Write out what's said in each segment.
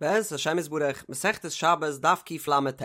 בעזרת השם יתברך, מסכת שבת דף קל"ט.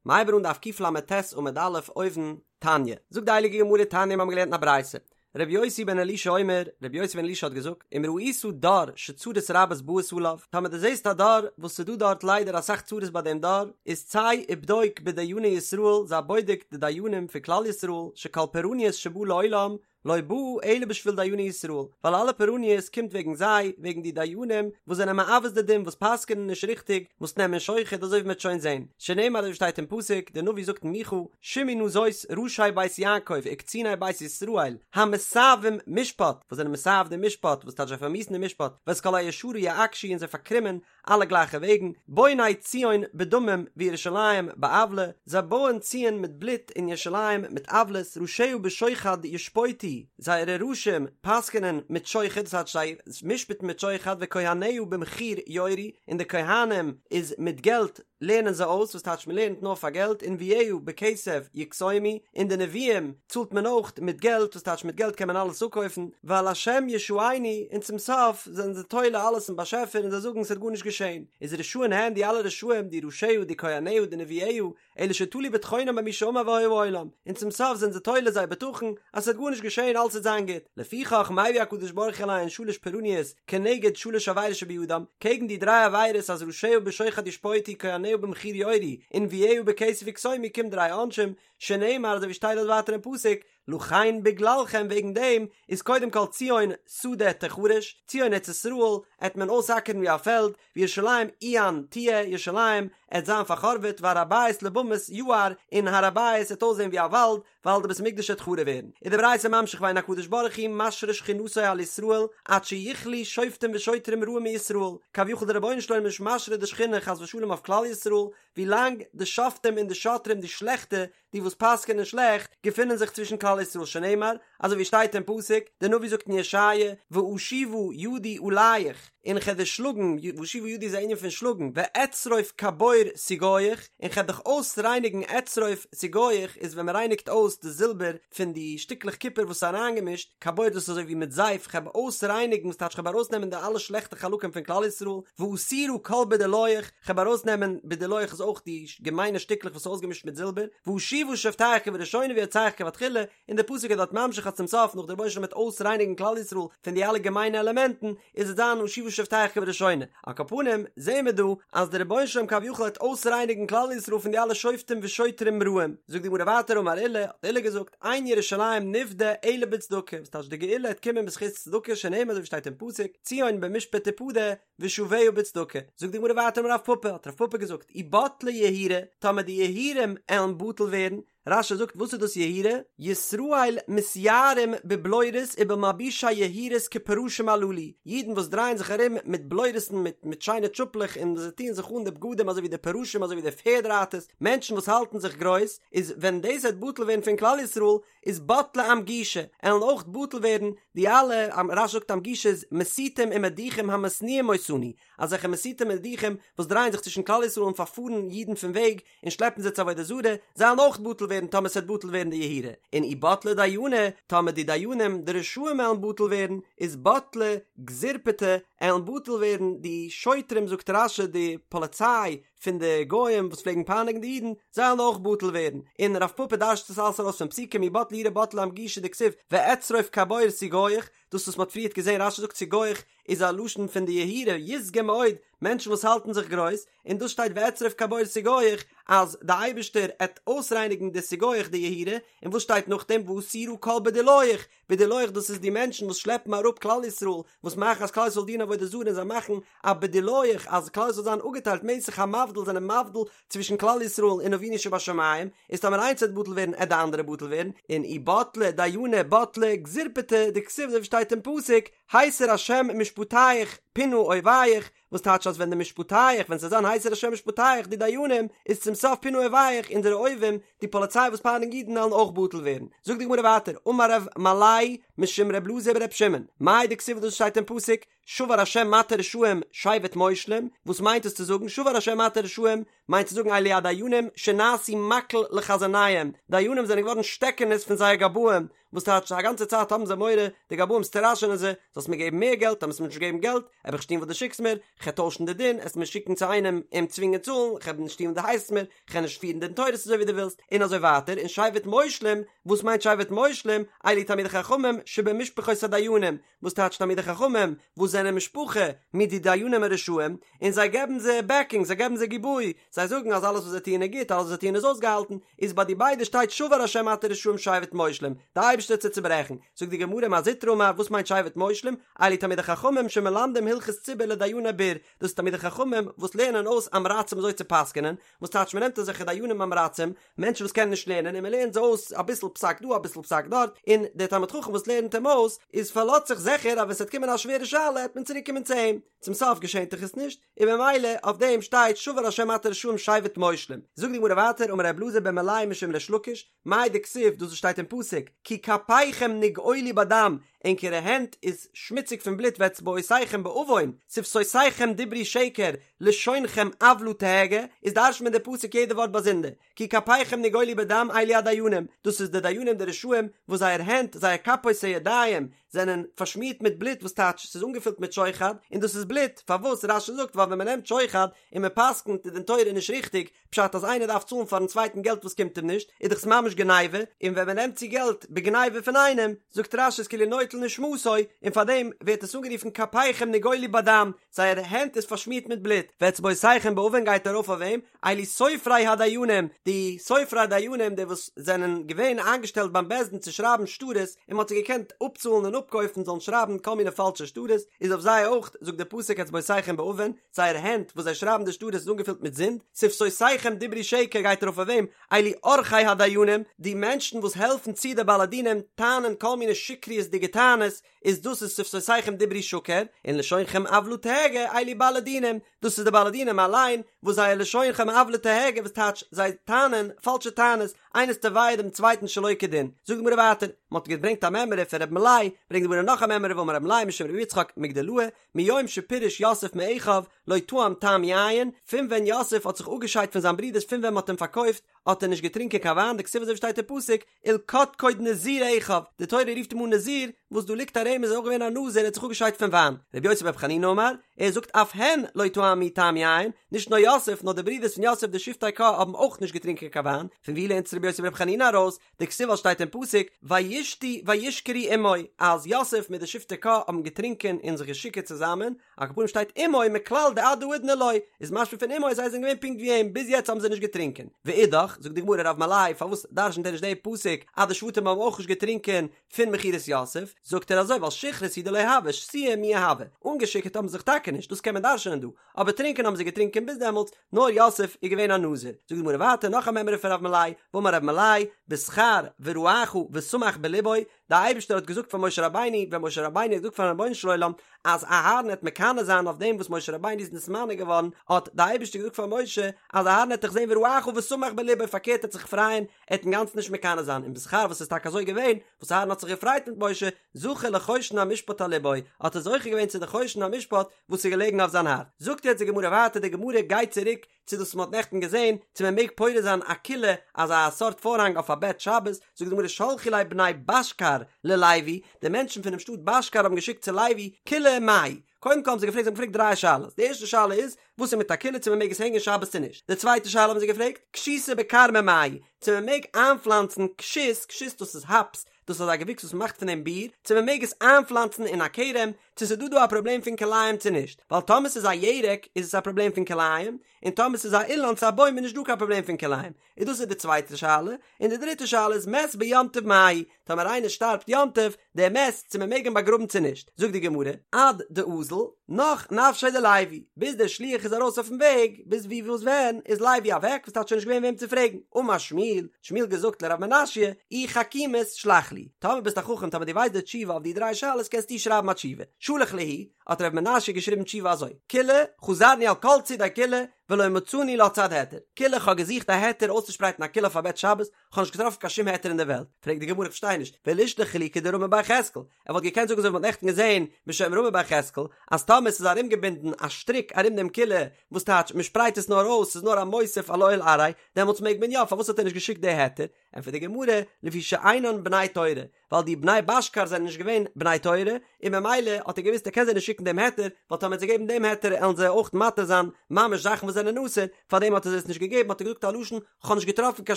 מ'הייבן אן דף קל"ט עמוד א' אויבן, תניא. זאגט די הייליגע גמרא תניא מיר האבן געלערנט אין א ברייתא. רבי יוסי בן אלישע אומר, רבי יוסי בן אלישע האט געזאגט, אם ראית דור שצרות רבות באות עליו, טאמער דו זעסט א דור וואס ס'איז דא דארט ליידער אסאך צרות ביי דעם דור, איז צא ובדוק בדייני ישראל, זיי בודק די דיינים פון כלל ישראל, שכל פורעניות שבא לעולם, לא בא אלא בשביל דייני ישראל, ווייל אלע פורעניות קומט וועגן זיי, וועגן די דיינים וואס זענען מעוות די דין, וואס פסק'ענען נישט ריכטיג, וואס נעמען שוחד, אזוי ווי מ'וועט שוין זען, שנאמר אזוי ווי שטייט אין פסוק, דער נביא זאגט אין מיכה, שמעו נא זאת ראשי בית יעקב וקציני בית ישראל, המתעבים משפט, וואס זענען מתעב די משפט, וואס טייטש זיי פארמיאוסן די משפט, ואת כל הישרה יעקשו און זיי פארקרומען אלע גלייכע וועגן, בוני ציון בדמים וירושלים בעוולה, זיי בויען ציון מיט בלוט און ירושלים מיט עוולות, ראשיה בשוחד ישפוטו, זייערע ראשים פסק'נען מיט שוחד, דאס הייסט זיי משפט'ן מיט שוחד, וכהניה במחיר יורו, און די כהנים איז מיט געלט לערנען זיי אויס, וואס טייטש מען לערנט נאר פאר געלט, ונביאיה בכסף יקסומו, און די נביאים צאלט מען אויך מיט געלט, וואס טייטש מיט געלט קען מען אלעס אפקויפן, ועל השם ישענו, און צום סוף זענען זיי תולה אלעס אין באשעפער און זיי זאגן ס'וועט גארנישט געשען, איז רשעים הן די אלע רשעים, די ראשיה, די כהניה, די נביאיה, אלא שתלו בטחונם במי שאמר והיה העולם, און צום סוף זענען זיי תולה זייער בטחון אז ס'וועט גארנישט געשען אלעס וועט זיין גוט, לפיכך מביא הקדוש ברוך הוא עליהן שלש פורעניות כנגד שלש עבירות שבידם, קעגן די דריי עבירות אז ראשיה בשוחד ישפוטו כהניה במחיר יורו, ונביאיה בכסף יקסומו קומט דריי עונשים, שנאמר אזוי ווי שטייט דארט ווייטער אין פסוק, לכן בגללכם וועגן דעם איז קודם כל ציון שדה תחרש, ציון ארץ ישראל עט מען אויסאקערן ווי א פעלד, וירושלים עיין תהיה, ירושלים עט זיין פארחורבעט, והר הבית לבמות יער, און הר הבית עט אויסזען ווי א וואלד, ווייל די בית המקדש עט חרוב ווערן. איז די ברייתא ממשיך ואין הקדוש ברוך הוא משרה שכינתו על ישראל עד שיכלו שופטים ושוטרים רעים מישראל, כביכול די רבונו של עולם איז נישט משרה די שכינה חס ושלום אויף כלל ישראל, ווילאנג די שופטים און די שוטרים די שלעכטע, די וואס פסק'ענען שלעכט, געפינען זיך צווישן כלל ישראל שנאמר, אזוי ווי שטייט אין פסוק, דער נביא זאגט אין ישעיה, ואשיבה ידי עליך, און כ'וועל דיר שלאגן, ואשיבה ידי איז א ענין פון שלאגן, ואצרוף כבור סיגוך, און כ'וועל דיך אויסרייניגן אצרוף סיגוך איז ווען מ'רייניגט אויס די זילבער פון די שטיקלעך קופער וואס איז אריינגעמישט, כבור דאס איז אזוי ווי מיט זייף, כ'וועל אויסרייניגן, וואס טייטש כ'וועל ארויסנעמען די אלע שלעכטע חלקים פון כלל ישראל, ואסירה כל בדולייך, כ'וועל ארויסנעמען בדולייך איז אויך די געמיינע שטיקלעך וואס איז אויסגעמישט מיט זילבער, ואשיבה שופטיך כבראשונה ויועציך כבתחילה, און דער פסוק איז דארט ממשיך אז צום סוף נאך דער רבונו של עולם וועט אויסרייניגן כלל ישראל פון די אלע געמיינע עלעמענטן, איז עס זיין ואשיבה שופטיך כבראשונה. על כל פנים, זעהן מיר דא אז דער רבונו של עולם כביכול וועט אויסרייניגן כלל ישראל פון די אלע שופטים ושוטרים רעים. זאגט די גמרא ווייטער אמר עולא, האט עולא געזאגט, אין ירושלים נפדה אלא בצדקה, וואס טייטש די גאולה העט קומען בזכות צדקה שנאמר אזוי ווי שטייט אין פסוק, ציון במשפט תפדה, ושביה בצדקה. זאגט די גמרא ווייטער אמר רב פפא, האט רב פפא געזאגט, אי בטלי יהירי, טאמער די יהירים עלן בטל ווערן, רש"י זאגט וואס איז דאס יהירי? ישראל מתייהרים בבלורית ובמלבושי יהירות כפרשים הללו, אידן וואס דרייען זיך ארום מיט בלורות'ן מיט מיט שיינע טשופלעך און זיי טוען זיך אן די בגדים אזוי ווי די פרשים אזוי ווי די פערד רייטערס, מענטשן וואס האלטן זיך גרויס, איז ווען דאס וועט בטל ווערן פון כלל ישראל, איז בטלי אמגושי, עלן אויך בטל ווערן די אלע, רש"י זאגט אמגושי איז מסיתים ומדיחים המשניאים אותנו, אזעלכע מסיתים ומדיחים וואס דרייען זיך צווישן כלל ישראל און פארפארן אידן פון וועג און שלעפן זיי צו עבודה זרה, זיי עלן אויך בטל ווערן טאמער ס'וועט בטל ווערן די יהירי, און אי בטלי דייני, טאמער די דיינים די רשעים עלן בטל ווערן, איז בטלי גזירפטי, עלן בטל ווערן די שוטרים זאגט רש"י די פאליציי פון די גוים וואס פלעגן פייניגן די אידן, זיי עלן אויך בטל ווערן, און רב פפא דרש'ט עס אלעס ארויס פון פסוקים אי בטלי יהירי בטלי אמגושי דכתיב ואצרוף כבור סיגוך, דאס וואס מ'האט פריערט געזען רש"י זאגט סיגוך איז א לשון פון די יהירי יסגי מאוד, מענטשן וואס האלטן זיך גרויס, און דאס שטייט ואצרוף כבור סיגוך אז די אייבערשטער עט אויסרייניגן די סיגוך די יהירי, און וואס שטייט נאכדעם ואסירה כל בדולייך, בדולייך דאס איז די מענטשן וואס שלעפן אראפ כלל ישראל, וואס מאכן אז כלל ישראל דינען עבודה זרה און זיי מאכן א בדולייך אז כלל ישראל זאל זיין אפגעטיילט מסך המבדיל זענען מבדיל צווישן כלל ישראל און אבינו שבשמים, איז טאמער איינס וועט בטל ווערן עט די אנדערע בטל ווערן, און אי בטלי דייני בטלי גזירפטי דכתיב אזוי ווי שטייט אין פסוק, הסיר השם משפטיך פינה אויביך, וואס טייטש אז ווען די משפטיך ווען ס'זאל זיין הסיר השם משפטיך די דיינים איז צום סוף פינה אויביך אונזערע אויבים די פאליציי וואס פייניגן אידן וועלן אויך בטל ווערן זאגט די גמרא ווייטער אמר רב מלאי משום רב אלעזר ברב שמעון מאי דכתיב דאס שטייט אין פסוק שבר השם מטה רשעים שבט מושלים וואס מיינט עס צו זאגן שבר השם מטה רשעים מיינט צו זאגן אלו הדיינים שנעשו מקל לחזניהם דיינים זענען געווארן שטעקענעס פון זייער גבאים. וואס טייטש א גאנצע צייט האבן זיי מורא, די גבאים סטראשענען זיי, זאלסט מיר געבן מער געלט, טאמער וועסט מיר נישט געבן געלט, וועל איך נישט טון וואס דו שיקסט מיר, כ'וועל טוישן די דין, עסט מיר שיקן צו איינעם אים צווינגען צאלן, כ'וועל נישט טון וואס דו הייסט מיר, כ'וועל נישט פירן דין תורות אזוי ווי דו ווילסט, און אזוי ווייטער, און שבט מושלים, וואס מיינט שבט מושלים, אלו תלמידי חכמים שבמשפחות הדיינים, וואס טייטש תלמידי חכמים וואס זענען משפחה מיט די דיינים הרשעים, און זיי געבן זיי בעקינג, זיי געבן זיי גיבוי, זיי זאגן אז אלעס וואס זיי טוען איז גוט, אלעס וואס זיי טוען איז אויסגעהאלטן, איז ביי די ביידע שטייט שבר השם מטה רשעים שבט מושלים, די אייבערשטער וועט זיי צוברעכן, זאגט די גמרא מר זוטרא אמר וואס מיינט שבט מושלים, אלו תלמידי חכמים שמלמדים הלכות ציבור לדייני בור, דאס איז תלמידי חכמים וואס לערנען אויס עם הארצים אזוי צו פסק'נען, וואס טייטש מען נעמט אזעלכע דיינים עם הארצים, מענטשן וואס קענען נישט לערנען און מען לערנט זיי אויס אביסל פסק דא אביסל פסק דארט, און דער תלמיד חכם וואס לערנט אים אויס איז פארלאזט זיך זיכער אז ווען ס'וועט קומען א שווערע שאלה העט מען צוריק קומען צו אים, צום סוף געשענט דאך עס נישט, און במילא אויף דעם שטייט שבר השם מטה רשעים שבט מושלים. זאגט די גמרא ווייטער אמר ר' אלעזר בן מלאי משום ריש לקיש, מאי דכתיב דאס וואס שטייט אין פסוק כי כפיכם נגאלו בדם, ענקערע הענט איז שמוציג פון בלוט ואצבעותיכם בעוון, שפתותיכם דברו שקר, לשונכם עוולה תהגה, איז דרש'נט מען די פסוק יעדע ווארט באזונדער, כי כפיכם נגאלו בדם אלו הדיינים, דאס איז די דיינים די רשעים וואס זייער הענט, זייער כפות הידיים, זענען פארשמירט מיט בלוט וואס טייטש ס'איז אנגעפילט מיט שוחד, און דאס איז בלוט, פארוואס? רש"י זאגט ווייל ווען מ'נעמט שוחד און מ'פסק'נט די דין תורה נישט ריכטיג, פשט אז איינער דארף צאלן פארן צווייטן געלט וואס קומט אים נישט, איז דאך עס ממש גניבה, און ווען מען נעמט צו געלט בגניבה פון איינעם, זאגט רש"י איז כאילו נוטל נשמתו, און פארדעם ווערט עס אנגערופן כפיכם נגאלו בדם, זייער הענט איז פארשמירט מיט בלוט, ואצבעותיכם בעוון גייט ארויף אויף וועם? אלו סופרי הדיינים, די סופרי הדיינים די וואס זענען געווען איינגעשטעלט ביים בית דין צו שרייבן שטרות, און מען האט זיי געקענט אפצאלן און אפקויפן זאלן שרייבן כל מיני פאלשע שטרות, איז אויף זיי אויך זאגט די פסוק אצבעותיכם בעוון, זייער הענט וואס זיי שרייבן די שטרות איז אנגעפילט מיט זינד, שפתותיכם דברו שקר גייט ארויף אויף וועם? אלו עורכי הדיינים, די מענטשן וואס העלפן צו די בעלי דינים טענה'ן כל מיני שקריות'דיגע טענות, איז דאס איז שפתותיכם דברו שקר, און לשונכם עוולה תהגה, אלו בעלי דינים, דאס איז די בעלי דינים אליין, וואס זייער לשונכם עוולה תהגה וואס טייטש זיי טענה'ן פאלשע טענות, איינער איז תובע דעם צווייטן שלא כדין. זאגט די גמרא ווייטער, מען האט געברענגט א מימרא פון ר' מלאי, ברענגט די גמרא נאך א מימרא ואמר ר' מלאי משום ר' יצחק מגדלאה, מיום שפירש יוסף מאחיו לא טעם טעם יין, פון ווען יוסף האט זיך אפגעשיידט פון זיין ברודערס פון ווען מען האט אים פארקויפט האט ער נישט געטרינקען קיין וויין דכתיב אזוי ווי שטייט אין פסוק ולקדקוד נזיר אחיו, די תורה רופט אים אן נזיר, וואס דא ליגט א רמז ער איז אויך געווען א נזיר ער האט זיך אפגעשיידט פון וויין, רבי יוסי ברבי חנינא אמר, ער זאגט אף הן לא טעמו טעם יין, נישט נאר יוסף נאר די ברודערס פון יוסף די שבטי קה האבן אויך נישט געטרינקען קיין וויין, פון ווי לערנט עס רבי יוסי ברבי חנינא ארויס? דכתיב ווייל שטייט אין פסוק וישתו וישכרו עמו אז יוסף מיט די שבטי קה האבן געטרינקען און זיך געשיקערט צוזאמען, על כל פנים שטייט עמו מכלל דעד האידנא לא, איז משמע פון עמו אז זיי זענען געווען פונקט ווי אים, ביז יעצט האבן זיי נישט געטרינקען. ואידך, זאגט די גמרא רב מלאי פארוואס דרשנ'ט ער נישט די פסוק אז די שבטים האבן אויך נישט געטרינקען פון מכירת יוסף, זאגט ער אזוי ווייל שכרות הוא דלא הוה, שתויי מיהא הוה, אנגעשיקערט האבן זיך טאקע נישט, דאס קען מען דרשנ'ען דא, אבער טרינקען האבן זיי געטרינקען ביז דעמאלטס, נאר יוסף איז געווען א נזיר. זאגט די גמרא ווייטער נאך א מימרא פון רב מלאי, ואמר רב מלאי, בשכר וראך ושמח בלבו, די אייבערשטער האט געזאגט פאר משה רבינו, ווען משה רבינו האט געזאגט פארן רבונו של עולם אז אהרן העט מקנא זיין אויף דעם וואס משה רבינו איז נתמנה געווארן, האט די אייבערשטער געזאגט פאר משה אז אהרן העט דיך זען וראך ושמח בלבו, פארקערט ער העט זיך פרייען, ער העט אינגאנצן נישט מקנא זיין, און בשכר וואס איז טאקע אזוי געווען, וואס אהרן האט זיך געפרייט מיט משה, זכה לחושן המשפט על לבו, האט ער זוכה געווען צו די חושן המשפט וואס איז געלעגן אויף זיין הארץ. זאגט יעצט די גמרא ווייטער, די גמרא גייט צוריק צו דאס וואס מען האט נעכטן געזען, צו מען מעג פורס זיין א כילה, אזא סארט פארהאנג אויף א בעט שבת, זאגט די גמרא שלחו ליה בני בשכר ללוי, די מענטשן פונעם שטאט בשכר האבן געשיקט צו לוי, כילה מהו, קודם כל האבן זיי געפרעגט, זיי האבן געפרעגט דריי שאלות, די ערשטע שאלה איז, וואס איז מיט א כילה צו מען מעג עס הענגען שבת צו נישט, די צווייטע שאלה האבן זיי געפרעגט, כשיתא בכרמא מהו, צו מען מעג איינפלאנצן כשות, כשות דאס איז האפס, דאס איז אזא געוויקס וואס מען מאכט פון דעם ביר, צו מען מעג עס איינפלאנצן אין א כרם, צו ס'איז דא דא א פראבלעם פון כלאים צו נישט, ווייל טאמער ס'איז א ירק איז עס א פראבלעם פון כלאים, און טאמער ס'איז א אילן צו א בוים איז נישט דא קיין פראבלעם פון כלאים, איז דאס איז די צווייטע שאלה, און די דריטע שאלה איז מת ביום טוב מהו, טאמער איינער שטארבט יום טוב, דער מת, צו מען מעג אים באגראבן צו נישט, זאגט די גמרא, עד דאזל, נח נפשיה דלוי, ביז דער שליח איז ארויס אויפן וועג, ביז ווי וואס ווען, איז לוי אוועק, וואס טייטש שוין נישט געווען וועם צו פרעגן, אמר שמואל, האט שמואל געזאגט לרב מנשיא, אי חכימת שלח לי, טאמער ביסט א חכם טאמער דו ווייסט די תשובה אויף די דריי שאלות קענסטו שרייבן א תשובה, שלח להו, האט רב מנשיא געשריבן תשובה אזוי, כילה, חזרנו על כל צידי כילה, ולא מצינו לה צד היתר, כילה כ'האב געזוכט א היתר אויסצושפרייטן א כילה אויף א בעט שבת, כ'האב נישט געטראפן קיין שום היתר אין דער וועלט, פרעגט די גמרא איך פארשטיי נישט, ולישלח להו כדרמי בר יחזקאל, ער וואלט געקענט זאגן אזוי ווי מ'האט נעכטן געזען בשם רמי בר יחזקאל, אז טאמער ס'איז ארומגעבינדן א שטריק ארום דעם כילה, וואס טייטש מ'שפרייט עס נאר אויס, ס'איז נאר א מוסיף על אוהל עראי, דעמאלטס מעג מען יא, פארוואס האט ער נישט געשיקט די היתר? ענטפערט די גמרא, לפי שאינן בני תורה, ווייל די בני בשכר זענען נישט געווען בני תורה, און ממילא האט ער געוואוסט ער קען זיי נישט שיקן דעם היתר, ווייל טאמער ער וועט זיי געבן דעם היתר עלן זיי אויך מתיר זיין ממש זאכן וואס זענען אסור, פארדעם האט ער זיי עס נישט געגעבן האט ער געזאגט א לשון כ'האב נישט געטראפן קיין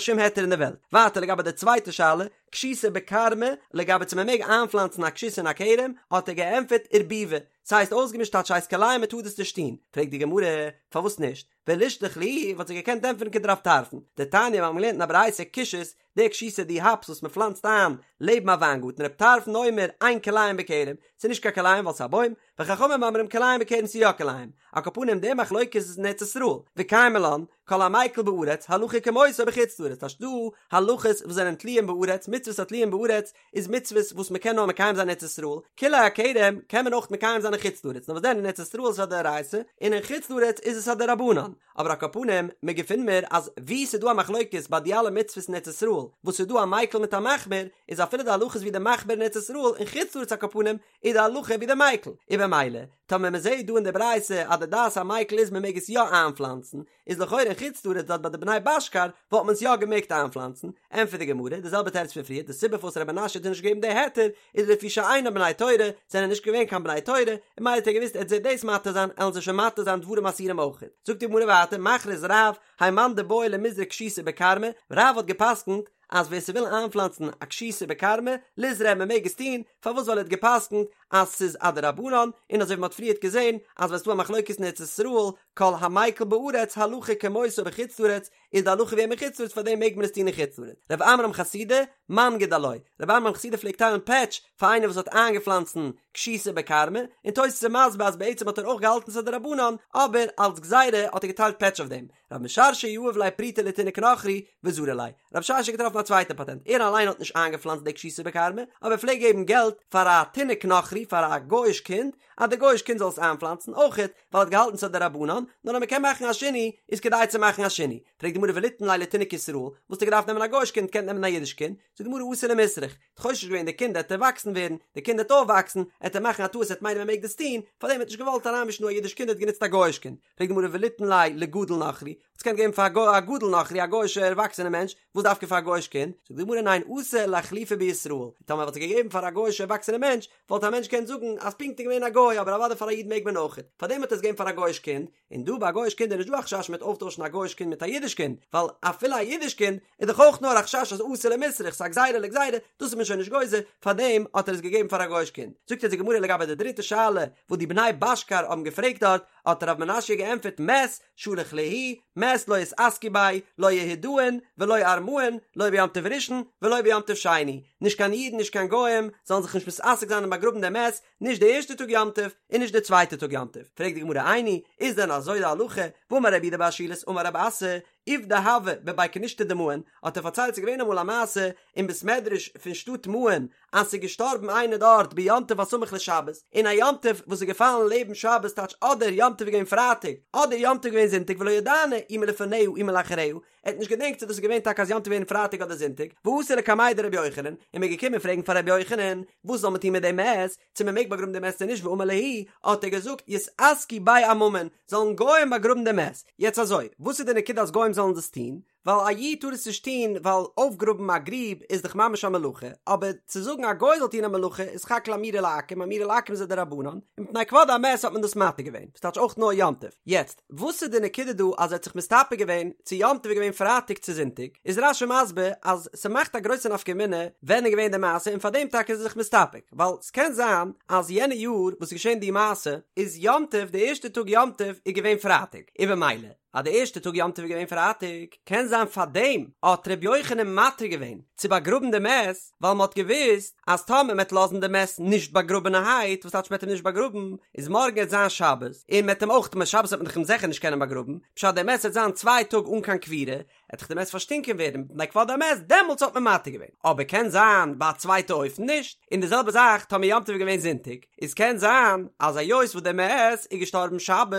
שום היתר אין די וועלט. ווייטער לגבי די צווייטע שאלה, כשיתא בכרמא, לגבי צו מען מעג איינפלאנצן א כשות אין א כרם, האט ער געענטפערט ערבובא, ס'הייסט אויסגעמישט טייטש ס'הייסט כלאים מ'טאר דאס נישט טון, פרעגט די גמרא, פארוואס נישט? ולישלח להו וואלט זי געקענט ענטפערן כדרב טרפון, דתניא מיר האבן געלערנט אין א ברייתא כושית, די כשיתא די האפס וואס מען פלאנצט איין לעבן א וויינגארטן רב טרפון אומר אין כלאים בכרם, ס'איז נישט קיין כלאים ווייל ס'איז א בוים, וחכמים אומרים כלאים בכרם ס'איז יא כלאים, על כל פנים די מחלוקת איז אין ארץ ישראל, וקיימא לן, כל המיקל בארץ הלכה כמותו בחוץ לארץ טייטש דא הלכות וואס זענען תלויים בארץ מצוות התלויים בארץ איז מצוות וואס מען קען נאר מקיים זיין אין ארץ ישראל, כלאי הכרם קען מען אויך מקיים זיין אין חוץ לארץ נאר וואס דען אין ארץ ישראל איז עס א דאורייתא און אין חוץ לארץ איז עס א דרבנן, אבער על כל פנים מען געפינט מיר אז וואו ס'איז דא א מחלוקת ביי די אלע מצוות אין ארץ ישראל וואס ס'איז דא א מיקל מיט א מחמיר איז אפילו די הלכה איז ווי די מחמיר אין ארץ ישראל אין חוץ לארץ על כל פנים איז די הלכה ווי די מיקל, און במילא טאמער מען זעהט דא אין די ברייתא אז די דעת המיקל איז מען מעג עס יא איינפלאנצן, איז לכאורה אין חוץ לארץ דארט ביי די בני בשכר וואלט מען עס יא געמעגט איינפלאנצן, ענטפערט די גמרא די זעלבע תירוץ פון פריער, די סיבה פארוואס ר' מנשיא האט נישט געגעבן די היתר איז לפי שאינן בני תורה, זענען נישט געווען קיין בני תורה, און ממילא האט ער געוואוסט ער וועט זיי דאס מתיר זיין עלן זיי שוין מתיר זיין דברים אסורים אויכעט. זאגט די גמרא ווייטער מכריז רב, האי מאן דבעי למיזרע כשיתא בכרמא, רב האט געפסקנט אז ווער ס'וויל איינפלאנצן א כשיתא בכרמא, ליזרע מען מעג עס טון, פארוואס ווייל ער האט געפסקנט אז ס'איז א דרבנן, און אזוי ווי מ'האט פריערט געזען אז ווען ס'דא א מחלוקת אין ארץ ישראל, כל המיקל בארץ הלכה כמותו בחוץ לארץ, איז די הלכה ווי אים אין חוץ לארץ פארדעם מעג מען עס טון אין חוץ לארץ. רב עמרם חסידא, מנגיד עילויה, רב עמרם חסידא פלעגט טיילן פעטש פאר איינער וואס האט איינגעפלאנצן כשיתא בכרמא, און תוס' איז מסביר אז בעצם האט ער אויך געהאלטן ס'איז א דרבנן, אבער אלס גזירה האט ער געטיילט פעטש אויף דעם. רב משרשיא יהב ליה פרוטה לתינוק נוכרי וזרי ליה. רב משרשיא האט געטראפן א צווייטע פאטענט, ער אליין האט נישט איינגעפלאנצט די כשיתא בכרמא, אבער ער פלעגט געבן געלט פאר א תינוק נוכרי, פאר א גוי'איש קינד, אז די גוי'איש קינד זאל עס איינפלאנצן, אויכעט ווייל ער האט געהאלטן ס'איז א דרבנן, נאר אז מ'קען מאכן א שינוי, איז כדאי צו מאכן א שינוי. פרעגט די גמרא וליתן ליה לתינוק ישראל, וואס האט ער געדארפט נעמען א גוי'איש קינד, קען נעמען א אידיש קינד, זאגט די גמרא אתי למיסרך, האט חושש געווען די קינד עט ערוואקסן ווערן, די קינד עט אויפוואקסן, עט ער מאכן א טעות עט מיינען מ'מעג דאס טון, פארדעם האט נישט געוואלט אריינמישן דא א אידיש קינד ער האט גענוצט א גוי'איש קינד. פרעגט די גמרא וליתן ליה לגדול נוכרי, האט עס געקענט געבן פאר א גדול נוכרי א גוי'אישע ערוואקסענע מענטש, וואס דווקא פאר א גוי'איש קינד? זאגט די גמרא ניין אתי לאחלופי בישראל, טאמער וואלט ער געגעבן פאר א גוי'אישע ערוואקסענע מענטש, וואלט א מענטש געקענט זאגן אז פונקט איז געווען א גוי אבער אוודאי פאר א איד מעג מען אויכעט, פארדעם האט ער עס געגעבן פאר א גוי'איש קינד, און דא ביי א גוי'איש קינד איז נישט דא א חשש מ'וועט אויפטוישן א גוי'איש קינד מיט א אידיש קינד, ווייל אפילו א אידיש קינד איז דאך אויך נאר א חשש אז אתי למיסרך, ס'איז א גזירה לגזירה, דאס איז מען שוין נישט גוזר, פארדעם האט ער עס געגעבן פאר א גוי'איש קינד. זאגט אונז די גמרא לגבי די דריטע שאלה וואס די בני בשכר האבן געפרעגט דארט, האט רב מנשיא געענטפערט מת שלח להו מת לא יתעסקו ביה לא יהודאין ולא ארמאין לא ביום טוב ראשון ולא ביום טוב שני, נישט קיין אידן נישט קיין גוים זאלן זיך נישט מתעסק זיין און באגראבן דעם מת, נישט די ערשטע טאג יום טוב און נישט די צווייטע טאג יום טוב, פרעגט די גמרא איני, איז דען אזוי די הלכה, והאמר רב יהודה בר שילת אמר רב אסי, עובדא הוה בבי כנישתא דמעון, האט ער פארציילט ס'איז געווען אמאל א מעשה אין בית מדרש פון שטאט מעון אז ס'איז געשטארבן איינער דארט ביום טוב הסמוך לשבת, אין א יום טוב וואס איז געפאלן לעבן שבת טייטש אדער יום טוב איז געווען פרייטאג אדער יום טוב איז געווען זונטאג ולא ידענא אי מלפניה אי מלאחריה, ער האט נישט געדענקט צו דאס איז געווען טאקע אז יום טוב איז געווען פרייטאג אדער זונטאג, ואתו לקמיה דרבי יוחנן, און מ'איז געקומען פרעגן פאר רבי יוחנן וואס זאל מען טון מיט דעם מת, צו מ'מעג באגראבן דעם מת צו נישט ואמר להו, האט ער געזאגט יתעסקו ביה עממין, זאלן גוים באגראבן דעם מת. יעצט אזוי, וואס איז די נקודה אז גוים זאלן דאס טון? ווייל א איד טאר עס נישט טון ווייל אויפגראבן א גריב איז דאך ממש א מלאכה, אבער צו זאגן א גוי זאל טון א מלאכה איז סך הכל אמירה לעכו"ם, אמירה לעכו"ם איז א דרבנן, און מפני כבוד המת האט מען דאס מתיר געווען, וואס טייטש אויך נאר יום טוב. יעצט, וואס איז די נקודה דא אז ער האט זיך מסתפק געווען צו יום טוב איז געווען פרייטאג צו זונטאג, איז רש"י מסביר אז ס'מאכט א גרויסע נפקא מינה ווען איז געווען די מעשה און פארדעם טאקע איז ער זיך מסתפק, ווייל ס'קען זיין אז יענע יאר וואס איז געשען די מעשה איז יום טוב די ערשטע טאג יום טוב איז געווען פרייטאג, און במילא אז די ערשטע טאג יום טוב איז געווען פרייטאג קען זיין פארדעם האט ר' יוחנן מתיר געווען צו באגראבן די מת ווייל מ'האט געוואוסט אז טאמער מ'עט לאזן די מת נישט באגראבענערהייט וואס טייטש מ'עט אים נישט באגראבן איז מארגן עט זיין שבת און מ'עט אים אויך שבת וועט מען דאך אים זיכער נישט קענען באגראבן פשט די מת עט זיין צוויי טאג אן קיין קבורה עט דאך די מת פארשטינקען ווערן מפני כבוד המת, דעמאלטס האט מען מתיר געווען, אבער קען זיין ביי א צווייטע אופן נישט, און די זעלבע זאך טאמער יום טוב איז געווען זונטאג, איז קען זיין אז היות וואס די מת איז געשטארבן שבת,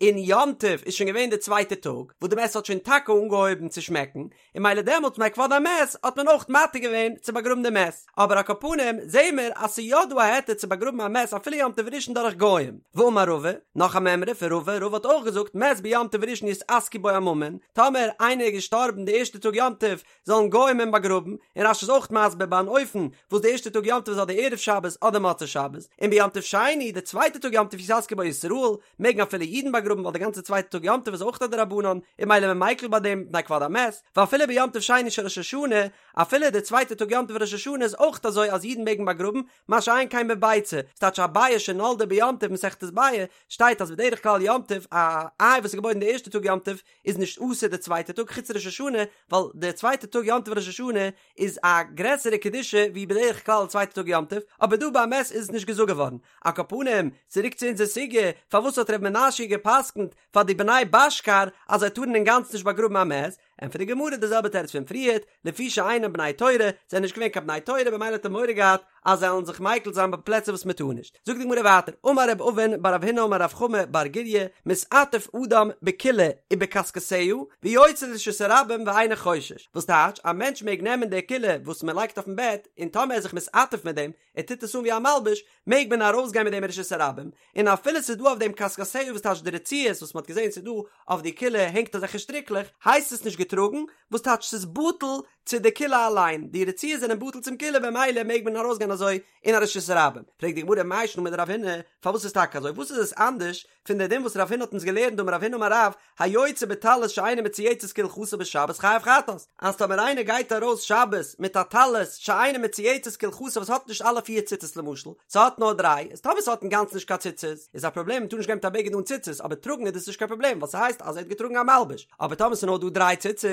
און יום טוב איז שוין געווען די צווייטע טאג, וואס די מת האט שוין טאקע אנגעהויבן צו שמעקן, און מילא דעמאלטס מפני כבוד המת האט מען אויך מתיר געווען צו באגראבן די מת, אבער על כל פנים זעהן מיר אז ס'איז יא דא א היתר צו באגראבן א מת אפילו יום טוב ראשון דורך גוים, ואמר רבא, נאך א מימרא פון רבא, רבא האט אויך געזאגט מת ביום טוב ראשון יתעסקו בו עממין, טאמער איינער איז געשטארבן. געשטארבן די ערשטע טאג יום טוב זאלן גוים אים באגראבן, און רש"י איז אויך מסביר ביי אן אופן וואס די ערשטע טאג יום טוב איז אדער ערב שבת אדער מוצאי שבת, און ביום טוב שני, די צווייטע טאג יום טוב יתעסקו בו ישראל, מעגן אפילו אידן באגראבן ווייל די גאנצע צווייטע טאג יום טוב איז אויך א דרבנן, און ממילא איז מען מיקל ביי דעם מפני כבוד המת, ואפילו ביום טוב שני של ראש השנה, אפילו די צווייטע טאג יום טוב ראש השנה איז אויך אזוי אז אידן מעגן באגראבן, מה שאין כן בביצה, ס'טייטש א ביעא שנולדה ביום טוב מסכת ביעא, שטייט אז בדרך כלל יום טוב א איי וואס איז געבוירן די ערשטע טאג יום טוב איז נישט אסור די צווייטע טאג חוץ ראש השנה, ווייל די צווייטע טאג יום טוב ראש השנה איז א גרעסערע קדושה ווי בדרך כלל די צווייטע טאג יום טוב, אבער דא ביי מת איז עס נישט געזאגט געווארן. על כל פנים, צוריק צו אונזער סוגיא, פארוואס האט ר' מנשיא גע'פסק'נט פאר די בני בשכר אז זיי טארן אינגאנצן נישט באגראבן א מת? ענטפערט די גמרא די זעלבע תירוץ פון פריערט, לפי שאינם בני תורה, זיי זענען נישט געווען קיין בני תורה במילא האט ער מורא געהאט אז זיי וועלן זיך מיקל זיין ביי פלעצער וואס מען טאר נישט. זאגט די גמרא ווייטער, אמר רב אבין בר רב הונא אמר רב חמא בר גוריא, מתעטף אדם בכילה ובכסכסיה, ויוצא לרשות הרבים ואינו חושש. וואס טייטש, א מענטש מעג נעמען די כילה וואס מען לייגט אויפן בעט, און טאמער ער איז זיך מתעטף מיט דעם, ער טוט עס אן ווי א מלבוש, מעג מען ארויסגיין מיט דעם אין רשות הרבים, און אפילו ס'איז דא אויף דעם כסכסיה וואס טייטש די רצועות וואס מ'האט געזען ס'איז דא אויף די כילה הענגט אזעלכע שטריקלעך, הייסט עס נישט געטראגן, וואס טייטש ס'איז בטל צו די כילה אליין, די רצועות זענען בטל צום כילה במילא מעג מען ארויסגיין אזוי אין א רשות הרבים. פרעגט די גמרא מאי שנא מדרב הונא, פארוואס איז טאקע אזוי, וואס איז עס אנדערש פון די דין וואס רב הונא האט אונז געלערנט דאמר רב הונא אמר רב, היוצא בטלית שאינה מצויצת כהלכתה בשבת חייב חטאת, אז טאמער איינער גייט ארויס שבת מיט א טלית שאינה מצויצת כהלכתה וואס האט נישט אלע פיר ציצית למשל, ס'האט נאר דריי, איז טאמער ס'האט אינגאנצן נישט קיין ציצית איז א פראבלעם מ'טאר נישט גיין מיט א בגד אן ציצית אבער טראגן איז דאס נישט קיין פראבלעם ווייל ס'הייסט אז ער האט געטראגן א מלבוש, אבער טאמער ס'איז נאר דא דריי ציצית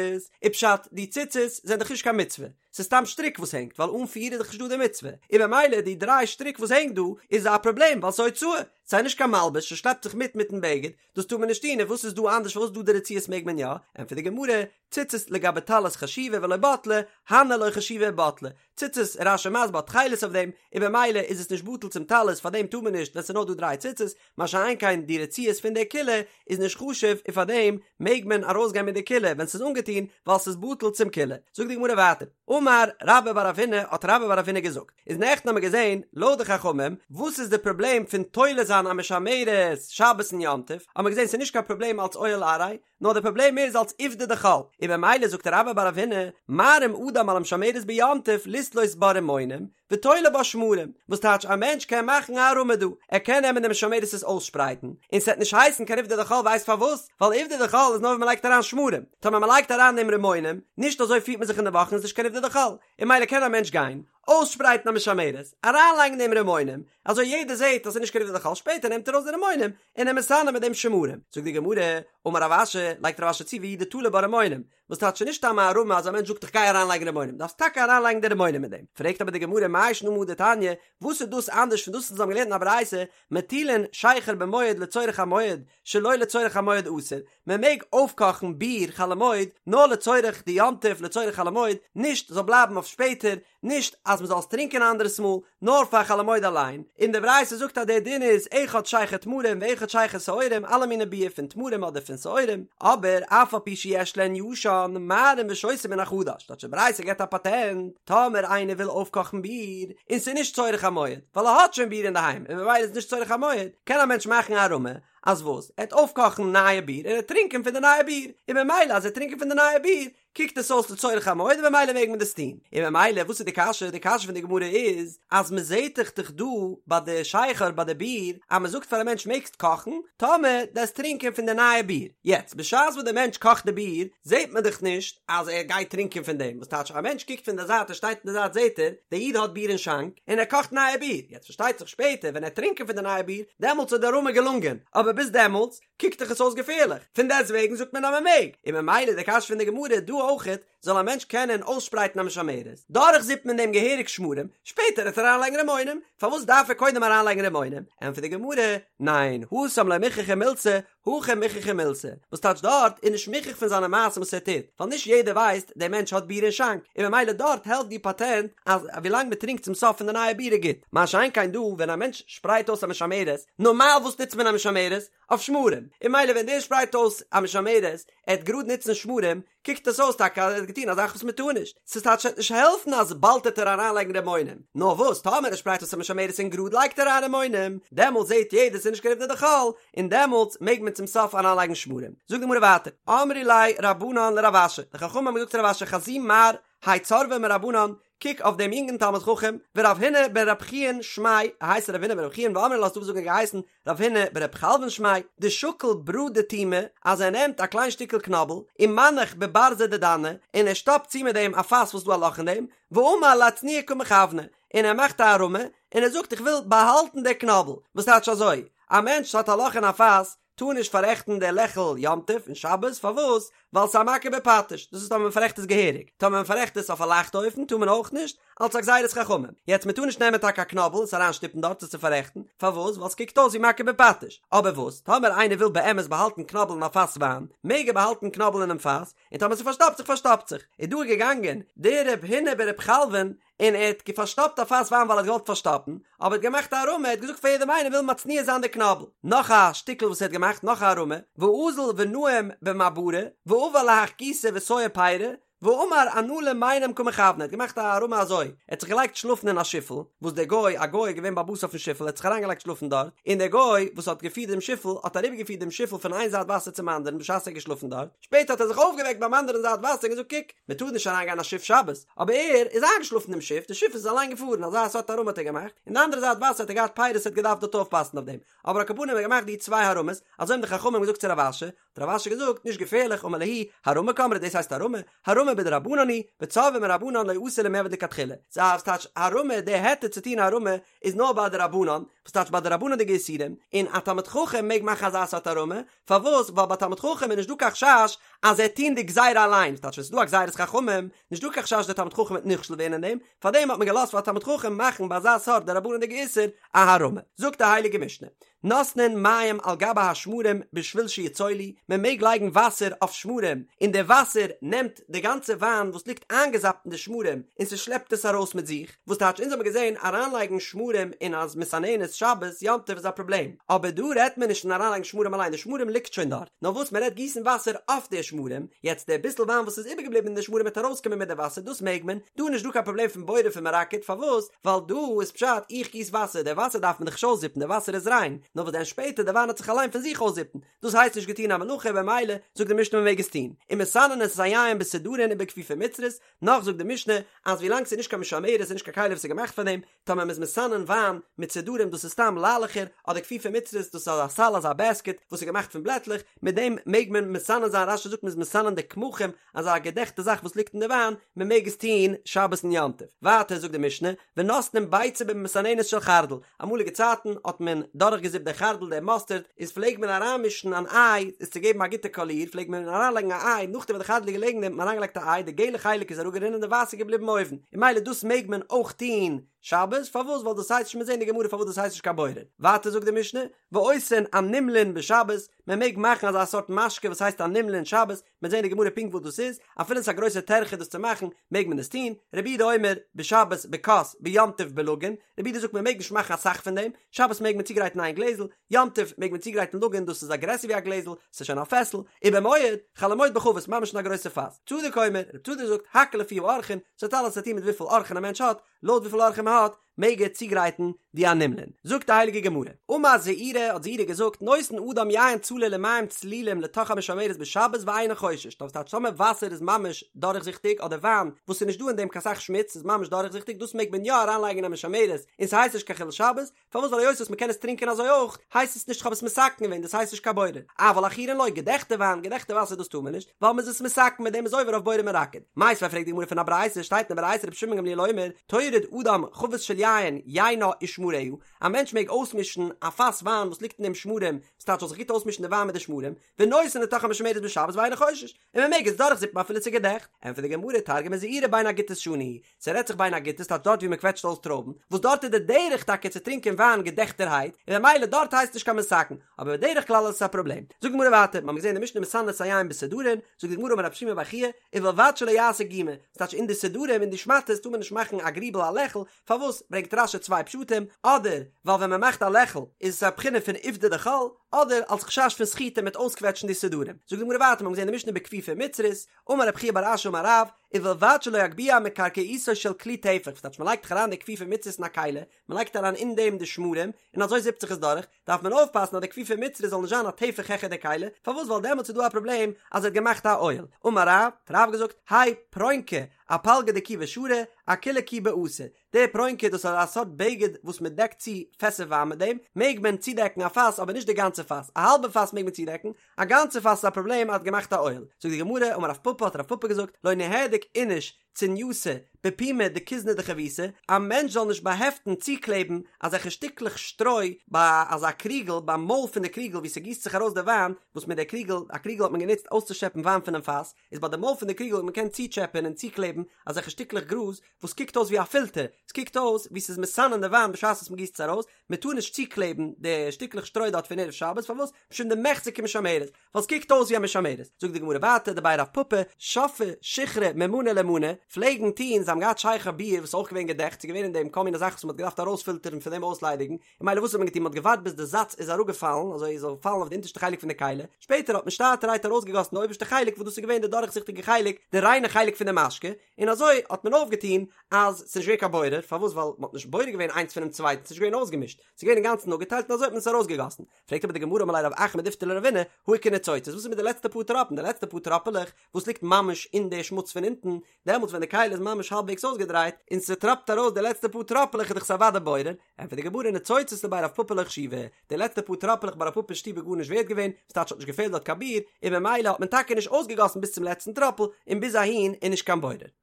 איז פשט די ציצית זענען דאך נישט קיין מצוה, ס'איז סתם שטריק וואס הענגט ווייל אן פיר איז דאך נישט דא די מצוה, און במילא די דריי שטריק וואס הענגט דא איז א פראבלעם ווייל ס'איז הוצאה, ס'איז נישט קיין מלבוש ס'שלעפט זיך מיט מיטן בגד, דאס טאר מען נישט טון, און וואס איז דא אנדערש פארוואס דא די רצועות מעג מען יא? ענטפערט די גמרא, ציצית לגבי טלית חשיבי ולא בטלי, הני לא חשיבי ובטלי, ציצית רש"י מסביר האט תכלת אויף דעם, און במילא איז עס נישט בטל צום טלית פאר דעם טאר מען נישט ווען ס'איז נאר דא דריי ציצית, מה שאין כן די רצועות פון די כילה איז נישט חשוב און פאר דעם מעג מען ארויסגיין מיט די כילה ווען ס'איז אנגעטון ווייל ס'איז בטל צום כילה. זאגט די גמרא ווייטער, אמר רבה בר רב הונא האט רבה בר רב הונא געזאגט, איז נעכטן האמיר געזען לויט די חכמים וואס איז די פראבלעם פון תולה זיין א משמרת שבת און יום טוב, האמיר געזען ס'איז נישט קיין פראבלעם אלץ אוהל עראי, נאר די פראבלעם איז אלץ עובדא דחול, און במילא זאגט רבה בר רב הונא, מערים אדם על המשמרת ביום טוב לתלות בה רימונים, ותולה בה שמרים, וואס טייטש א מענטש קען מאכן א הערמה דא, ער קען נעמען די משמרת עס אויסשפרייטן, און ס'עט נישט הייסן קיין עובדא דחול ווייסט פארוואס? ווייל עובדא דחול איז נאר ווען מ'לייגט אריין שמרים, טאמער מ'לייגט אריין דעם רימונים, נישט אזוי פירט מען זיך אין די וואכן איז נישט קיין עובדא דחול, און ממילא קען א מענטש גיין, אויסשפרייטן א משמרת, אריינלייגן דעם רימונים, אזוי יעדער זעט אז ס'איז נישט קיין עובדא דחול, שפעטער נעמט ער ארויס די רימונים, און ער מסנן מיט דעם שמרים. זאגט די גמרא, אמר רב אשי, לייגט רב אשי צו והוא דתלה בה רימונים, וואס טייטש נישט סתם א הערמה אז א מענטש זאגט איך גיי אריינלייגן רימונים, דארפסט טאקע אריינלייגן די רימונים אין דעם. פרעגט אבער די גמרא מאי שנא מהא דתניא, וואס איז דאס אנדערש פון דאס וואס אונז האבן געלערנט אין א ברייתא, מטילין שכר במועד לצורך המועד, שלא לצורך המועד אסור, מען מעג אויפקאכן ביר חול המועד נאר לצורך די יום טוב לצורך חול המועד, נישט זאל בלייבן אויף שפעטער, נישט אז מען זאל עס טרינקען א אנדערעס מאל, נאר פאר חול המועד אליין, און די ברייתא זאגט אז דער דין איז אחד שכר תמרים ואחד שכר שעורים, אלע מיני ביר פון תמרים אדער פון שעורים, אבער אף על פי שיש להן ישן, מערים ושותים מן החדש, טייטש די ברייתא געבט א פאטענט, טאמער איינער וויל אויפקאכן ביר, און ס'איז נישט צורך המועד, ווייל ער האט שוין ביר אינדערהיים און ממילא איז נישט צורך המועד, קען א מענטש מאכן א הערמה, אז וואס? ער וועט אויפקאכן נייע ביר און ער וועט טרינקען פון די נייע ביר, און ממילא אז ער וועט טרינקען פון די נייע ביר, קוקט עס אויס לצורך המועד און ממילא מעג מען דאס טון. און ממילא וואס איז די קשיא? די קשיא פון די גמרא איז אז מען זעט דאך דאך דא ביי די שכר ביי די ביר אז מען זאגט פאר א מענטש מעגסט קאכן טאמער דו וועסט טרינקען פון די נייע ביר. יעצט בשעת וואס די מענטש קאכט די ביר זעט מען דאך נישט אז ער גייט טרינקען פון דעם, וואס טייטש א מענטש קוקט פון די זייט ער שטייט אין די זייט זעט ער די איד האט ביר אין שאנק און ער קאכט נייע ביר, יעצט פארשטייט זיך שפעטער ווען ער וועט טרינקען פון די נייע ביר דעמאלטס איז די הערמה געלונגען, אבער ביז דעמאלטס קוקט דאך עס אויס געפערליך, פון דעסט וועגן זאגט מען אז מען מעג, און ממילא די קשיא פון די גמרא דא אויכעט, זאל א מענטש קענען אויסשפרייטן א משמרת, דורכזיפן אין דעם געהעריג שמרים, שפעטער וועט ער אריינלייגן רימונים, פארוואס דארף ער קודם אריינלייגן רימונים? ענטפערט די גמרא, ניין, התם לא מוכחא מילתא, הכא מוכחא מילתא, וואס טייטש דארט איז נישט מוכח פון זיינע מעשים וואס ער טוט, ווייל נישט יעדער ווייסט דער מענטש האט ביר אין שאנק, און ממילא דארט העלפט די פאטענט אז ווילאנג מען טרינקט צום סוף פון די נייע ביר איז גוט, מה שאין כן דא ווען א מענטש שפרייט אויס א משמרת, נארמאל וואס נוצט מען א משמרת? אויף שמרים, און ממילא ווען דער שפרייט אויס א משמרת, ער וועט גראד נוצן שמרים, קוקט עס אויס טאקע אז ער האט געטון א זאך וואס מען טאר נישט, ס'איז טייטש ס'וועט נישט העלפן אז באלד וועט ער אריינלייגן רימונים, נאר וואס טאמער ער שפרייט אויס א משמרת און גראד לייגט ער אריין רימונים, דעמאלטס זעט יעדער ס'איז נישט קיין עובדא דחול, און דעמאלטס מעג מען. צום סוף אריינלייגן שמרים. זאגט די גמרא ווייטער, אמרי ליה רבנן לרב אשי, די חכמים האבן געזאגט צו רב אשי חזי מר האי צורבא מרבנן, קוק אויף דעם יונגן תלמיד חכם, ורב הונא בן רב חיון שמיה, ער הייסט רב הונא בן רב חיון ואמרי לה ס'דא וואס זאגן ער האט געהייסן רב הונא ברב חלוון שמיה, דשקיל ברא דתומא, אז ער נעמט א קליין שטיקל קנאבל, ומנח בברזא דדנא, און ער שטאפט צו מיט דעם א פאס וואס איז דא א לאך אין דעם, ואמר לאצנועי קא מכוונא, און ער מאכט א הערמה, און ער זאגט איך וויל באהאלטן די קנאבל, וואס טייטש אזוי, א מענטש האט א לאך אין א פאס, טאר נישט פאררעכטן די לעכל יום טוב און שבת, פארוואס? ווייל ס'איז א מכה בפטיש, דאס איז טאמער מ'פאררעכט עס געהעריג, טאמער מ'פאררעכט עס אויף א לייכטע אופן טאר מען אויך נישט, אלס א גזירת חכמים, יעצט מ'טאר נישט נעמען טאקע א קנאבל עס אריינשטופן דארט עס צו פאררעכטן, פארוואס? ווייל ס'קוקט אויס ווי מכה בפטיש, אבער וואס? טאמער איינער וויל באמת באהאלטן קנאבל אין א פאס וויין, מעג ער באהאלטן קנאבל אינעם פאס, און טאמער ס'פארשטאפט זיך פארשטאפט זיך, איז דא געגאנגען דער רב הונא ברב חלוון און ער האט פארשטאפט א פאס וויין ווייל ער האט געוואלט פארשטאפן, אבער ער האט געמאכט א הערמה, ער האט געזאגט פאר יעדעם איינעם וויל מצניע זיין די קנאבל. נאך א שטיקל וואס ער האט געמאכט, נאך א הערמה, ואזיל ונאים במעברא, ועבר להך גיסא וסייע פירי, ואמר אנא למיינם קא מכוון, ער האט געמאכט א הערמה אזוי, ער האט זיך געלייגט שלאפן אין א שיפל, וואס דער גוי, א גוי איז געווען בעל הבית אויפן שיפל, ער האט זיך אריינגעלייגט שלאפן דארט, און דער גוי וואס האט געפירט דעם שיפל, האט אריבערגעפירט דעם שיפל פון איין זייט וואסער צום אנדערן בשעת ער איז געשלאפן דארט, שפעטער האט ער זיך אויפגעוועקט ביים אנדערן זייט וואסער און געזאגט קוק, מען טאר נישט אריינגיין אין א שיף שבת, אבער ער איז איינגעשלאפן אינעם שיף, די שיף איז אליין געפארן, אזא סארט הערמה האט ער געמאכט, און די אנדערע זייט וואסער האט ער געהאט פירות ער האט געדארפט דארט אויפפאסן אויף דעם, אבער על כל פנים האט ער געמאכט די צוויי הערמות, אזוי האבן די חכמים געזאגט צו רב אשי, האט רב אשי געזאגט, נישט געפערליך, אמר להו, הערמה קאמרת דאס הייסט הערמה, הערמה בדרבנן היא, וצורבא מרבנן לא אתי למיעבד לכתחילה, סא ס'טייטש הערמה, די היתר צו טון הערמה איז נאר ביי דרבנן, וואס טייטש ביי דרבנן'דיגע איסורים, און א תלמיד חכם מעג מאכן אזא סארט הערמה, פארוואס? ווייל ביי תלמיד חכם איז נישט דא קיין חשש אז ער וועט טון די גזירה אליין, ס'טייטש ווען ס'איז דא א גזירת חכמים, נישט דא קיין חשש דער תלמיד חכם וועט נכשל ווערן אין דעם, פארדעם האט מען געלאזט פאר א תלמיד חכם מאכן ביי אזא סארט דרבנן'דיגע איסור א הערמה. זאגט די הייליגע משנה, נותנין מים על גבי השמרים בשביל שיצולו, מען מעג לייגן וואסער אויף שמרים, און די וואסער נעמט די גאנצע וויין וואס ליגט איינגעזאפט אין די שמרים און ס'שלעפט עס ארויס מיט זיך, וואס טייטש אונז האבן געזען אריינלייגן שמרים אין א מסננת שבת יום טוב איז א פראבלעם, אבער דא רעדט מען נישט פון אריינלייגן שמרים אליין די שמרים ליגט שוין דארט, נאר וואס מען רעדט גיסן וואסער אויף די שמרים, יעצט די ביסל וויין וואס איז איבערגעבליבן אין די שמרים וועט ארויסקומען מיט די וואסער דאס מעג מען, דא איז נישט דא קיין פראבלעם פון בורר פון מרקד פארוואס ווייל דא איז פשט איך גיס וואסער די וואסער דארף מען דאך נישט אויסזיפן די וואסער איז ריין, נאר וואס דען שפעטער די וויין וועט זיך אליין פון זיך אויסזיפן, דאס הייסט נישט געטון א מלאכה במילא זאגט די משנה מען מעג עס טון, ומסננין את היין בסודרין ובכפיפה מצרית, נאך זאגט די משנה אז ווילאנג ס'איז נישט קיין משמרת און נישט קיין כלי וואס איז געמאכט פאר דעם, טאמער מ'איז מסנן וויין מיט סודרים דאס איז סתם ליילעכער, אדער כפיפה מצרית דאס איז אזא סל אזא בעסקעט וואס איז געמאכט פון בלעטלעך, מיט דעם מעג מען מסנן זיין רש"י זאגט מ'איז מסנן די קמחים אזא געדעכטע זאך וואס ליגט אין די וויין, מ'מעג עס טון שבת און יום טוב. ווייטער זאגט די משנה, ונותנין ביצה במסננת של חרדל, אמאליגע צייטן האט מען דורכגעזיפט די חרדל די מאסטערד, איז פלעג מען אריינמישן אן איי עס צו געבן א גוטע קאליר פלעג מען אריינלייגן א איי נאכדעם וואס די חרדל איז געלעגן אין דעם האט מען אריינגעלייגט א איי די געלע חלק איז אראפגערינען די ווייסע איז געבליבן אויבן און ממילא דאס מעג מען אויך טון שבת פארוואס ווייל דאס הייסט נישט מ'עט זען אין די גמרא פארוואס דאס הייסט נישט קיין בורר ווייטער זאגט די משנה ועושין אנומלין בשבת מען מעג מאכן אזא סארט משקה וואס הייסט אנומלין שבת מ'עט זען אין די גמרא פונקט וואס דאס איז, אפילו עס איז א גרויסע טרחה דאס צו מאכן, מעג מען עס טון, רבי יהודה אומר, בשבת בכוס, ביום טוב בלגין, רבי יהודה זאגט מען מעג נישט מאכן אסאך פון דעם, שבת מעג מען צוגרייטן איין גלעזל, יום טוב מעג מען צוגרייטן לגין דאס איז א גרעסער ווי א גלעזל, ס'איז שוין א פעסל, ובמועד, חול המועד בחבית, ממש אין א גרויסע פאס. צדוק אומר, רבי צדוק זאגט, הכל לפי האורחין, ס'האט אלעס צו טון מיט וויפיל אורחין א מענטש האט, לויט וויפיל אורחים מען האט, מעג ער צוגרייטן די אנומלין. זאגט די הייליגע גמרא, אמר זעירי האט זעירי געזאגט, נותן אדם יין צלול ומים צלולים לתוך המשמרת בשבת ואינו חושש, דאס טייטש טאמער וואסער איז ממש דורכזיכטיג אדער וויין וואס איז נישט דא אין דעם קיין סך שמוץ איז ממש דורכזיכטיג דאס מעג מען יא אריינלייגן אין א משמרת און ס'הייסט נישט קיין חילול שבת, פארוואס ווייל היות וואס מ'קען עס טרינקען אזוי אויך הייסט עס נישט כ'האב עס מתקן געווען דאס הייסט נישט קיין בורר, אבל עכורין לא, געדעכטע וויין, געדעכטע וואסער דאס טאר מען נישט, ווייל מ'איז עס מתקן מיט דעם איז עובר אויף בורר מרקד. מיתיבי פרעגט די גמרא פון א ברייתא, שטייט אין די ברייתא רבי שמעון גמליאל אומר, טורד אדם חבית של יין, יינה ושמריה, א מענטש מעג אויסמישן א פאס וויין וואס ליגט אין דעם שמרים, ס'טייטש זאל זיך גוט אויסמישן די וויין מיט די שמרים, ונותן לתוך המשמרת בשבת ואינו חושש, און מען מעג עס דורכזיפן אפילו ס'איז געדעכט. ענטפערט די גמרא, תרגמא זעירי בין הגיתות שנו, ס'רעדט זיך בין הגיתות טייטש דארט ווי מען קוועטשט אויס טרויבן, וואס דארט איז די דרך טאקע צו טרינקען וויין געדעכטערהייט, און ממילא דארט הייסט נישט קיין מתקן, אבער בדרך כלל איז עס א פראבלעם. זאגט די גמרא ווייטער, מ'האמיר געזען אין די משנה מסננין את היין בסודרין, זאגט די גמרא אמר רב שימי בר חייא, ובלבד שלא יעשה גומא, ס'טייטש אין די סודרים אין די שמאטעס טאר מען נישט מאכן א גריבל א לעכל, פארוואס ברענגט רש"י צוויי פשטים, אדער ווייל ווען מ'מאכט א לעכל איז עס א בחינה פון עובדא דחול, אדער אלס חשש פון סחיטה מ'עט אויסקוועטשן די סודרים. זאגט די גמרא ווייטער, מ'האמיר געזען אין די משנה בכפיפה מצרית, אמר רב חייא בר אשי אמר רב, ובלבד שלא יגביה מקרקעיתו של כלי טפח, וואס טייטש מ'לייגט דאך אריין די כפיפה מצרית אין א כלי, מ'לייגט אריין אין דעם די שמרים, און אזוי זיפט זיך עס דורך, דארף מען אויפפאסן אז די כפיפה מצרית זאל נישט זיין א טפח העכער די כלי, פארוואס ווייל דעמאלטס איז דא א פראבלעם אז ער האט געמאכט א אוהל. אמר רב, האט רב געזאגט, האי פרונקא, אפלגא דכיבי שרי, אכוליה כיבי אסור, די פרונקא דאס איז א סארט בגד וואס מען דעקט צו פעסער וויין מיט דעם מעג מען צודעקן א פאס אבער נישט די גאנצע פאס, א האלבע פאס מעג מען צודעקן, א גאנצע פאס איז א פראבלעם אז האט געמאכט א אוהל. זאגט די גמרא, אמר רב פפא האט רב פפא געזאגט, לא ניהדק איניש צינייתא בפומא דכוזנא דחביתא, א מענטש זאל נישט באהעפטן צוקלעבן אזעלכע שטיקלעך שטרוי ביי אזא קריגל ביים מויל פון די קריגל וואו ס'גיסט זיך ארויס די וויין, וואס מיט די קריגל, א קריגל האט מען גענוצט אויסצושעפן וויין פונעם פאס, איז ביי די מויל פון די קריגל האט מען געקענט צוטשעפען און צוקלעבן אזעלכע שטיקלעך גראז וואס קוקט אויס ווי א פילטער, עס קוקט אויס ווי ס'איז מסנן די וויין בשעת וואס מ'גיסט עס ארויס, מ'טאר נישט צוקלעבן די שטיקלעך שטרוי דארט פון ערב שבת, פארוואס? משום דמיחזי כמשמרת, ווייל עס קוקט אויס ווי א משמרת. זאגט די גמרא ווייטער דבי רב פפא, שפעי שיכרא ממנא למנא, פלעגן טון, זיי האבן געהאט שכר ביר וואס איז אויך געווען געדעכט, ס'איז געווען אין דעם כל מיני זאכן וואס מ'האט געדארפט ארויספילטערן פון דעם אויסליידיגן, און ממילא וואס האט מען געטון, מ'האט געווארט ביז די זאץ איז אראפגעפאלן, אזוי עס זאל פאלן אויף די אונטערשטע חלק פון די כלי, שפעטער האט מען שטאטערהייט ארויסגעגאסן די אויבערשטע חלק וואס דאס איז געווען די דורכזיכטיגע חלק, די ריינע חלק פון די משקה, און אזוי האט מען אויפגעטון אז ס'איז נישט געווען קיין בורר, פארוואס? ווייל מ'האט נישט בורר געווען איינס פונעם צווייטן, ס'איז נישט געווען אויסגעמישט, ס'איז געווען אינגאנצן אפגעטיילט און אזוי האט מען עס ארויסגעגאסן. פרעגט אבער די גמרא אמר ליה רב אחא מדיפתי לרבינא, הא איכא ניצוצות, וואס איז מיט די לעצטע פאר טראפן, די לעצטע פאר טראפעלעך וואס ליגט ממש אין די שמוץ פון אונטן, דעמאלטס ווען די כלי איז ממש האלבוועגס אויסגעדרייט, און ס'טראפט ארויס די לעצטע פאר טראפעלעך איז דאך עס אוודאי בורר, ענטפערט די גמרא ניצוצות לבי רב פפא לא חשיבי, די לעצטע פאר טראפעלעך ביי רב פפא אין שטוב איז גארנישט ווערט געווען, ס'טייטש האט נישט געפעלט דארט קיין ביר, און ממילא האט מען טאקע נישט אויסגעגאסן ביז צום לעצטן טראפל, און ביז אהין איז נישט קיין בורר.